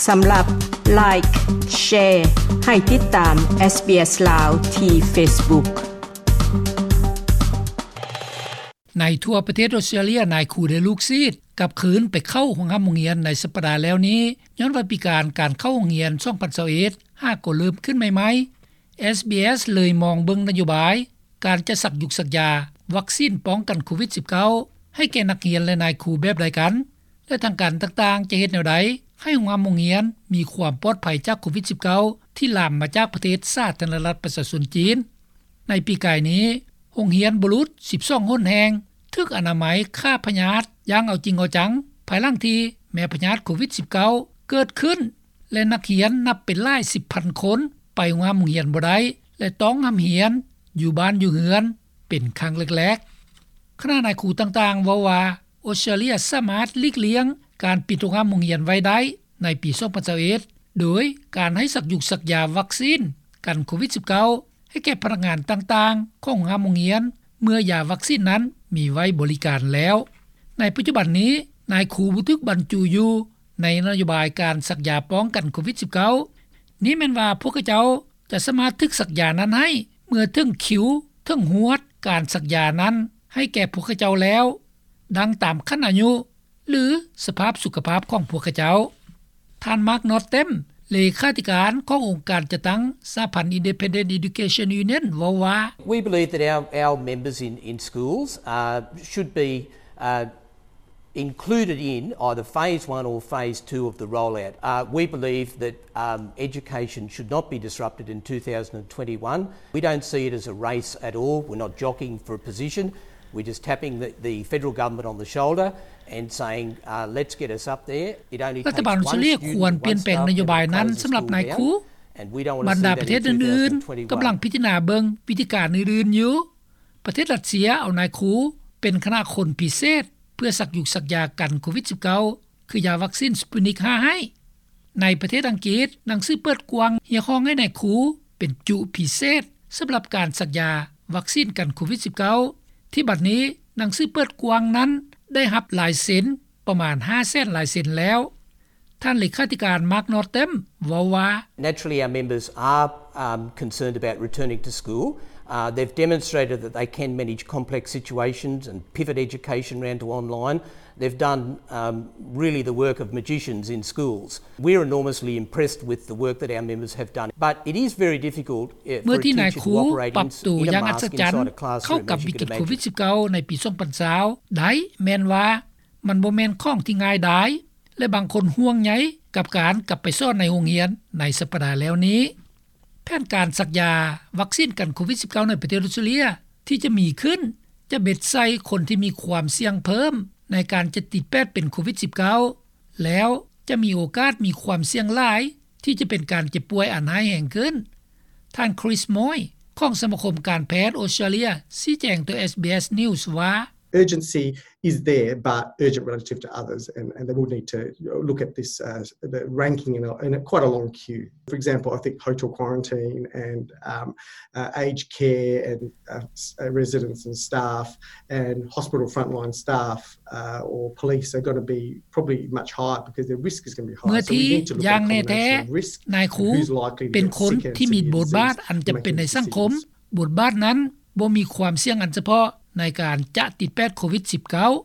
ສຳລັບ Like, Share ໃຫ້ຕິດຕາມ SBS ລາວ ທີ່ Facebook. ໃນທົ່ວປະເທດອົດສະຕຣາເລຍ ນາຍຄູ ແລະ ລູກສິດກັບຄືນໄປເຂົ້າໂຮງຮ່ຳໂຮງຮຽນໃນສັບປະດາແລ້ວນີ້ ຍ້ອນວ່າປີການການເຂົ້າໂຮງຮຽນ ສອງພັນຊາວເອັດ ຫາກໍເລີ່ມຂຶ້ນໃໝ່ໆ SBS ເລີຍມອງເບິ່ງນະໂຍບາຍ ການຈະສັກຢຸກສັກຢາວັກຊີນປ້ອງກັນໂຄວິດ-19 ໃຫ້ແກ່ນັກຮຽນ ແລະ ນາຍຄູແບບໃດກັນ ແລະ ທາງການຕ່າງໆຈະເຮັດແນວໃດ ໃຫ້ໂຮງຮ່ຳໂຮງຮຽນມີຄວາມປອດໄພຈາກໂຄວິດ-19 ທີ່ລາມມາຈາກປະເທດສາທາລະນະລັດປະຊາຊົນຈີນ. ໃນປີກາຍນີ້ ໂຮງຮຽນບຸລຸດສິບສອງຫົນແຫ່ງ ຖືກອະນາໄມຂ້າພະຍາດຢ່າງເອົາຈິງເອົາຈັງ ພາຍຫຼັງທີ່ແມ່ພະຍາດໂຄວິດ-19 ເກີດຂຶ້ນ ແລະ ນັກຮຽນນັບເປັນຫຼາຍສິບພັນຄົນ ໄປໂຮງຮ່ຳໂຮງຮຽນບໍ່ໄດ້ ແລະ ຕ້ອງຮ່ຳຮຽນຢູ່ບ້ານຢູ່ເຮືອນເປັນຄັ້ງແລກໆ. ຄະນະນາຍຄູຕ່າງໆເວົ້າວ່າ ອົດສະຕຣາເລຍສາມາດຫຼີກລ່ຽງການປິດໂຮງຮ່ຳໂຮງຮຽນໄວ້ໄດ້ໃນປີສອງພັນຊາວເອັດ ໂດຍການໃຫ້ສັກຢຸກສັກຢາວັກຊີນກັນໂຄວິດ-19 ໃຫ້ແກ່ພະນັກງານຕ່າງໆຂອງໂຮງຮ່ຳໂຮງຮຽນ ເມື່ອຢາວັກຊີນນັ້ນມີໄວ້ບໍລິການແລ້ວ. ໃນປັດຈຸບັນນີ້ ນາຍຄູບໍ່ຖືກບັນຈຸຢູ່ໃນນະໂຍບາຍການສັກຢາປ້ອງກັນໂຄວິດ-19. ນີ້ແມ່ນວ່າພວກເຂົາເຈົ້າຈະສາມາດຖືກສັກຢານັ້ນໃຫ້ ເມື່ອເຖິງຄິວເຖິງຮວດການສັກຢານັ້ນໃຫ້ແກ່ພວກເຂົາເຈົ້າແລ້ວ ດັ່ງຕາມຂັ້ນອາຍຸ ຫຼື ສະພາບສຸຂະພາບຂອງພວກເຂົາເຈົ້າ. ທ່ານ ມາກ ນອດເຕັມ ເລຂາທິການຂອງອົງການຈັດຕັ້ງສະຫະພັນ Independent Education Union ເວົ້າວ່າ We believe that our, our members in, in schools, uh, should be, uh, included in either phase one or phase two of the rollout. Uh, we believe that, um, education should not be disrupted in two thousand and twenty-one. We don't see it as a race at all. We're not jockeying for a position. We're just tapping the, the federal government on the shoulder and saying, uh, let's get us up there. It only takes one student, one subject, one school year. ລັດຖະບານອົດສະຕຣາເລຍຄວນປ່ຽນແປງນະໂຍບາຍນັ້ນສຳລັບນາຍຄູ. ບັນດາປະເທດອື່ນໆກຳລັງພິຈາລະນາເບິ່ງວິທີການອື່ນໆຢູ່. ປະເທດຣັດເຊຍເອົານາຍຄູເປັນຄະນະຄົນພິເສດ ເພື່ອສັກຢຸກສັກຢາກັນໂຄວິດ-19 ຄືຢາວັກຊີນ Sputnik ຫ້າ ໃຫ້. ໃນປະເທດອັງກິດ ໜັງສືເປີດກວ້າງຮຽກຮ້ອງໃຫ້ນາຍຄູເປັນຈຸພິເສດສຳລັບການສັກຢາວັກຊີນກັນໂຄວິດ-19 ທີ່ບັດນີ້ໜັງສືເປີດກວ້າງນັ້ນໄດ້ຮັບລາຍເຊັນປະມານຫ້າແສນລາຍເຊັນແລ້ວ. ທ່ານເລຂາທິການ ມາກ ນອດເຕັມ ເວົ້າວ່າ Naturally, our members are, um, concerned about returning to school. Uh, they've demonstrated that they can manage complex situations and pivot education around to online. They've done, um, really the work of magicians in schools. We're enormously impressed with the work that our members have done, but it is very difficult, uh, for a teacher to operate in, in a mask-inside classroom as you can imagine. ເມື່ອທີ່ນາຍຄູປັບໂຕຢ່າງອັດສະຈັນເຂົ້າກັບວິກິດໂຄວິດ-19 ໃນປີສອງພັນຊາວໄດ້ ແມ່ນວ່າມັນບໍ່ແມ່ນຂອງທີ່ງ່າຍດາຍ ແລະ ບາງຄົນຫ່ວງໃຍກັບການກັບໄປສອນໃນໂຮງຮຽນໃນສັບປະດາແລ້ວນີ້. ແຜນການສັກຢາວັກຊີນກັນໂຄວິດ-19 ໃນປະເທດອົດສະຕຣາເລຍທີ່ຈະມີຂຶ້ນ ຈະເບັດໃສ່ຄົນທີ່ມີຄວາມສ່ຽງເພີ່ມໃນການຈະຕິດແປດເປັນໂຄວິດ-19 ແລ້ວຈະມີໂອກາດມີຄວາມສ່ຽງຫຼາຍທີ່ຈະເປັນການເຈັບປ່ວຍອັນຮ້າຍແຮງຂຶ້ນ. ທ່ານ Chris Moy ຂອງສະມາຄົມການແພດອົດສະຕຣາເລຍ ຊີ້ແຈງຕໍ່ SBS News ວ່າ Urgency is there, but urgent relative to others, and, and they will need to look at this, uh, the ranking in a, in a quite a long queue. For example, I think hotel quarantine and, um, uh, aged care and, uh, s-, uh, residents and staff and hospital frontline staff, uh, or police are gonna be probably much higher because their risk is gonna be higher. ເມື່ອທີ່ຢ່າງແນ່ແທ້ ນາຍຄູເປັນຄົນທີ່ມີບົດບາດອັນຈຳເປັນໃນສັງຄົມ, ບົດບາດນັ້ນບໍ່ມີຄວາມສ່ຽງອັນສະເພາະໃນການຈະຕິດແປດໂຄວິດ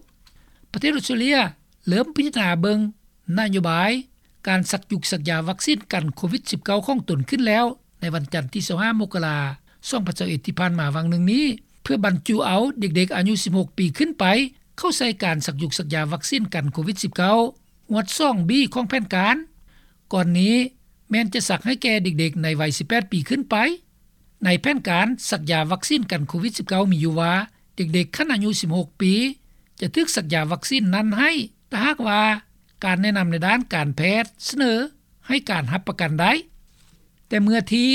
-19. ປະເທດອົດສະຕຣາເລຍເລີ່ມພິຈາລະນາເບິ່ງນະໂຍບາຍການສັກຢຸກສັກຢາວັກຊີນກັນໂຄວິດ-19 ຂອງຕົນຂຶ້ນແລ້ວ ໃນວັນຈັນທີຊາວຫ້າ ມົກກະລາ ສອງພັນຊາວເອັດ ທີ່ຜ່ານມາຫວ່າງໜຶ່ງນີ້ ເພື່ອບັນຈຸເອົາເດັກໆອາຍຸສິບຫົກປີຂຶ້ນໄປ ເຂົ້າໃສ່ການສັກຢຸກສັກຢາວັກຊີນກັນໂຄວິດ-19 ງວດສອງບີຂອງແຜນການ. ກ່ອນນີ້ແມ່ນຈະສັກໃຫ້ແກ່ເດັກໆໃນໄວສິບແປດປີຂຶ້ນໄປ. ໃນແຜນການສັກຢາວັກຊີນກັນໂຄວິດ-19 ມີຢູ່ວ່າ ເດັກໆຂັ້ນອາຍຸສິບຫົກປີ ຈະຖືກສັກຢາວັກຊີນນັ້ນໃຫ້ ຖ້າຫາກວ່າການແນະນຳໃນດ້ານການແພດສະເໜີໃຫ້ການຮັບປະກັນໄດ້. ແຕ່ເມື່ອທີ່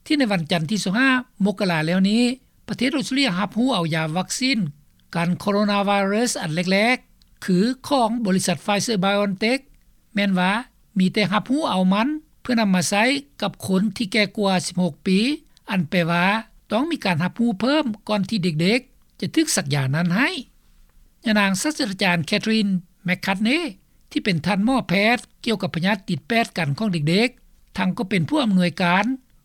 ທີ່ໃນວັນຈັນທີຊາວຫ້າ ມົກກະລາແລ້ວນີ້ ປະເທດອົດສະຕຣາເລຍຮັບຮູ້ເອົາຢາວັກຊີນກັນໂຄໂຣນາໄວຣັສອັນແລກໆ ຄືຂອງບໍລິສັດ Pfizer-BioNTech ແມ່ນວ່າມີແຕ່ຮັບຮູ້ເອົາມັນເພື່ອນຳມາໃຊ້ກັບຄົນທີ່ແກ່ກວ່າສິບຫົກປີ, ອັນແປວ່າຕ້ອງມີການຮັບຮູ້ເພີ່ມກ່ອນທີ່ເດັກໆຈະຖືກສັກຢານັ້ນໃຫ້. ຍານາງສາດສະດາຈານ Catherine McCartney ທີ່ ທີ່ເປັນທ່ານໝໍແພດກ່ຽວກັບພະຍາດຕິດແປດກັນຂອງເດັກໆ ທັງກໍເປັນຜູ້ອຳນວຍການ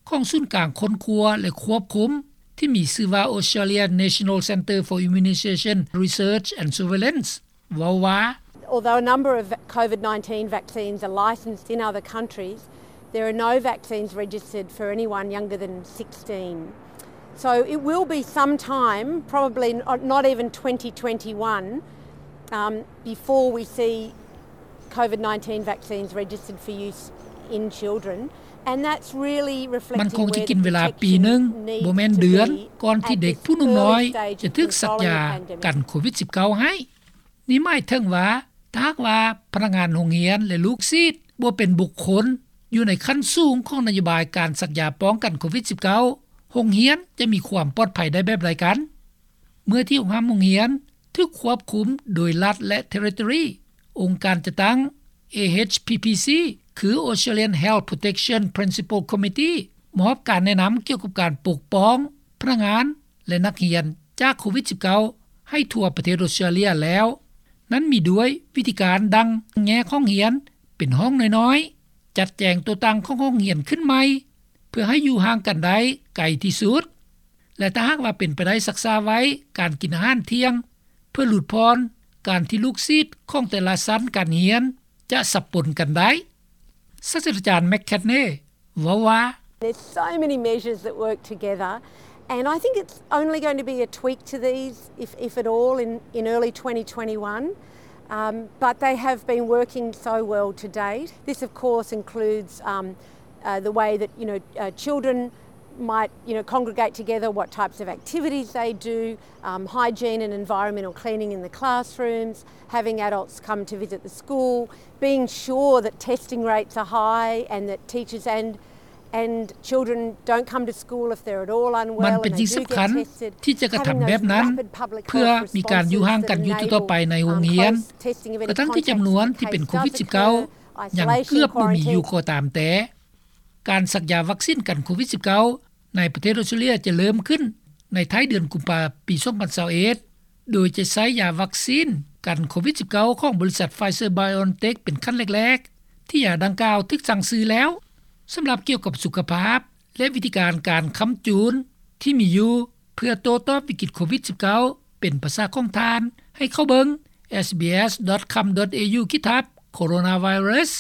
ຂອງສູນກາງຄົ້ນຄວ້າ ແລະ ຄວບຄຸມ ທີ່ມີຊື່ວ່າ Australian National Centre for Immunisation Research and Surveillance ເວົ້າວ່າ Although a number of COVID nineteen vaccines are licensed in other countries, there are no vaccines registered for anyone younger than sixteen. So it will be some time, probably not even twenty twenty-one, um, before we see COVID nineteen vaccines registered for use in children. And that's really reflecting where the protection needs to be at this early stage in terms of the vaccine. ມັນຄົງຈະກິນເວລາປີໜຶ່ງ ບໍ່ແມ່ນເດືອນ ກ່ອນທີ່ເດັກຜູ້ໜຸ່ມນ້ອຍຈະຖືກສັກຢາກັນໂຄວິດສິບເກົ້າໃຫ້. ນີ້ໝາຍເຖິງວ່າ ຖ້າຫາກວ່າພະນັກງານໂຮງຮຽນ ແລະ ລູກສິດ ບໍ່ເປັນບຸກຄົນຢູ່ໃນຂັ້ນສູງຂອງນະໂຍບາຍການສັກຢາປ້ອງກັນໂຄວິດສິບເກົ້າ ໂຮງຮຽນຈະມີຄວາມປອດໄພໄດ້ແບບໃດກັນ? ເມື່ອທີ່ໂຮງຮ່ຳໂຮງຮຽນຖືກຄວບຄຸມໂດຍລັດ ແລະ Territory, ອົງການຈັດຕັ້ງ AHPPC ຄື Australian Health Protection Principal Committee ມອບການແນະນຳກ່ຽວກັບການປົກປ້ອງພະນັກງານ ແລະ ນັກຮຽນຈາກໂຄວິດສິບເກົ້າ ໃຫ້ທົ່ວປະເທດອົດສະຕຣາເລຍແລ້ວ. ນັ້ນມີດ້ວຍວິທີການດັ່ງແຍກຫ້ອງຮຽນເປັນຫ້ອງນ້ອຍໆ, ຈັດແຈງຕົວຕັ້ງຂອງຫ້ອງຮຽນຂຶ້ນໃໝ່ ເພື່ອໃຫ້ຢູ່ຫ່າງກັນໄດ້ໄກທີ່ສຸດ ແລະ ຖ້າຫາກວ່າເປັນໄປໄດ້ ຊັກສາໄວ້ການກິນອາຫານທ່ຽງ ເພື່ອຫຼຸດຜ່ອນການທີ່ລູກສິດຂອງແຕ່ລະຊັ້ນການຮຽນຈະສັບປົນກັນໄດ້. ສາດສະດາຈານ McKechnie ເວົ້າວ່າ There's so many measures that work together, and I think it's only going to be a tweak to these, if, if at all, in, in early twenty twenty-one. Um, but they have been working so well to date. This, of course, includes, um, uh, the way that, you know, uh, children might, you know, congregate together, what types of activities they do, um, hygiene and environmental cleaning in the classrooms, having adults come to visit the school, being sure that testing rates are high and that teachers and, and children don't come to school if they're at all unwell and they do get tested. ມັນເປັນສິ່ງສຳຄັນທີ່ຈະກະທຳແບບນັ້ນ ເພື່ອມີການຢູ່ຫ່າງກັນຢູ່ຕໍ່ໄປໃນໂຮງຮຽນ ກະທັ່ງທີ່ຈຳນວນທີ່ເປັນໂຄວິດສິບເກົ້າ ຍັງເກືອບບໍ່ມີຢູ່ກໍຕາມແຕ່. ການສັກຢາວັກຊີນກັນໂຄວິດສິບເກົ້າ ໃນປະເທດອົດສະຕຣາເລຍຈະເລີ່ມຂຶ້ນໃນທ້າຍເດືອນກຸມພາ ປີສອງພັນຊາວເອັດ ໂດຍຈະໃຊ້ຢາວັກຊີນກັນໂຄວິດສິບເກົ້າ ຂອງບໍລິສັດ Pfizer-BioNTech ເປັນຂັ້ນແລກໆ ທີ່ຢາດັ່ງກ່າວຖືກສັ່ງຊື້ແລ້ວ. ສຳລັບກ່ຽວກັບສຸຂະພາບ ແລະ ວິທີການການຄ້ຳຈູນທີ່ມີຢູ່ ເພື່ອໂຕ້ຕອບວິກິດໂຄວິດສິບເກົ້າ ເປັນພາສາຂອງທ່ານ ໃຫ້ເຂົ້າເບິ່ງ sbs.com.au/coronavirus.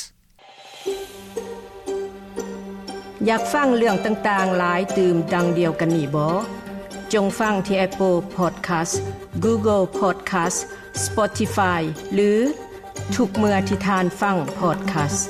ຢາກຟັງເລື່ອງຕ່າງໆຫຼາຍຕື່ມດັ່ງດຽວກັນນີ້ບໍ? ຈົ່ງຟັງທີ່ Apple Podcast, Google Podcast, Spotify ຫຼື ທຸກເມື່ອທີ່ທ່ານຟັງ Podcast.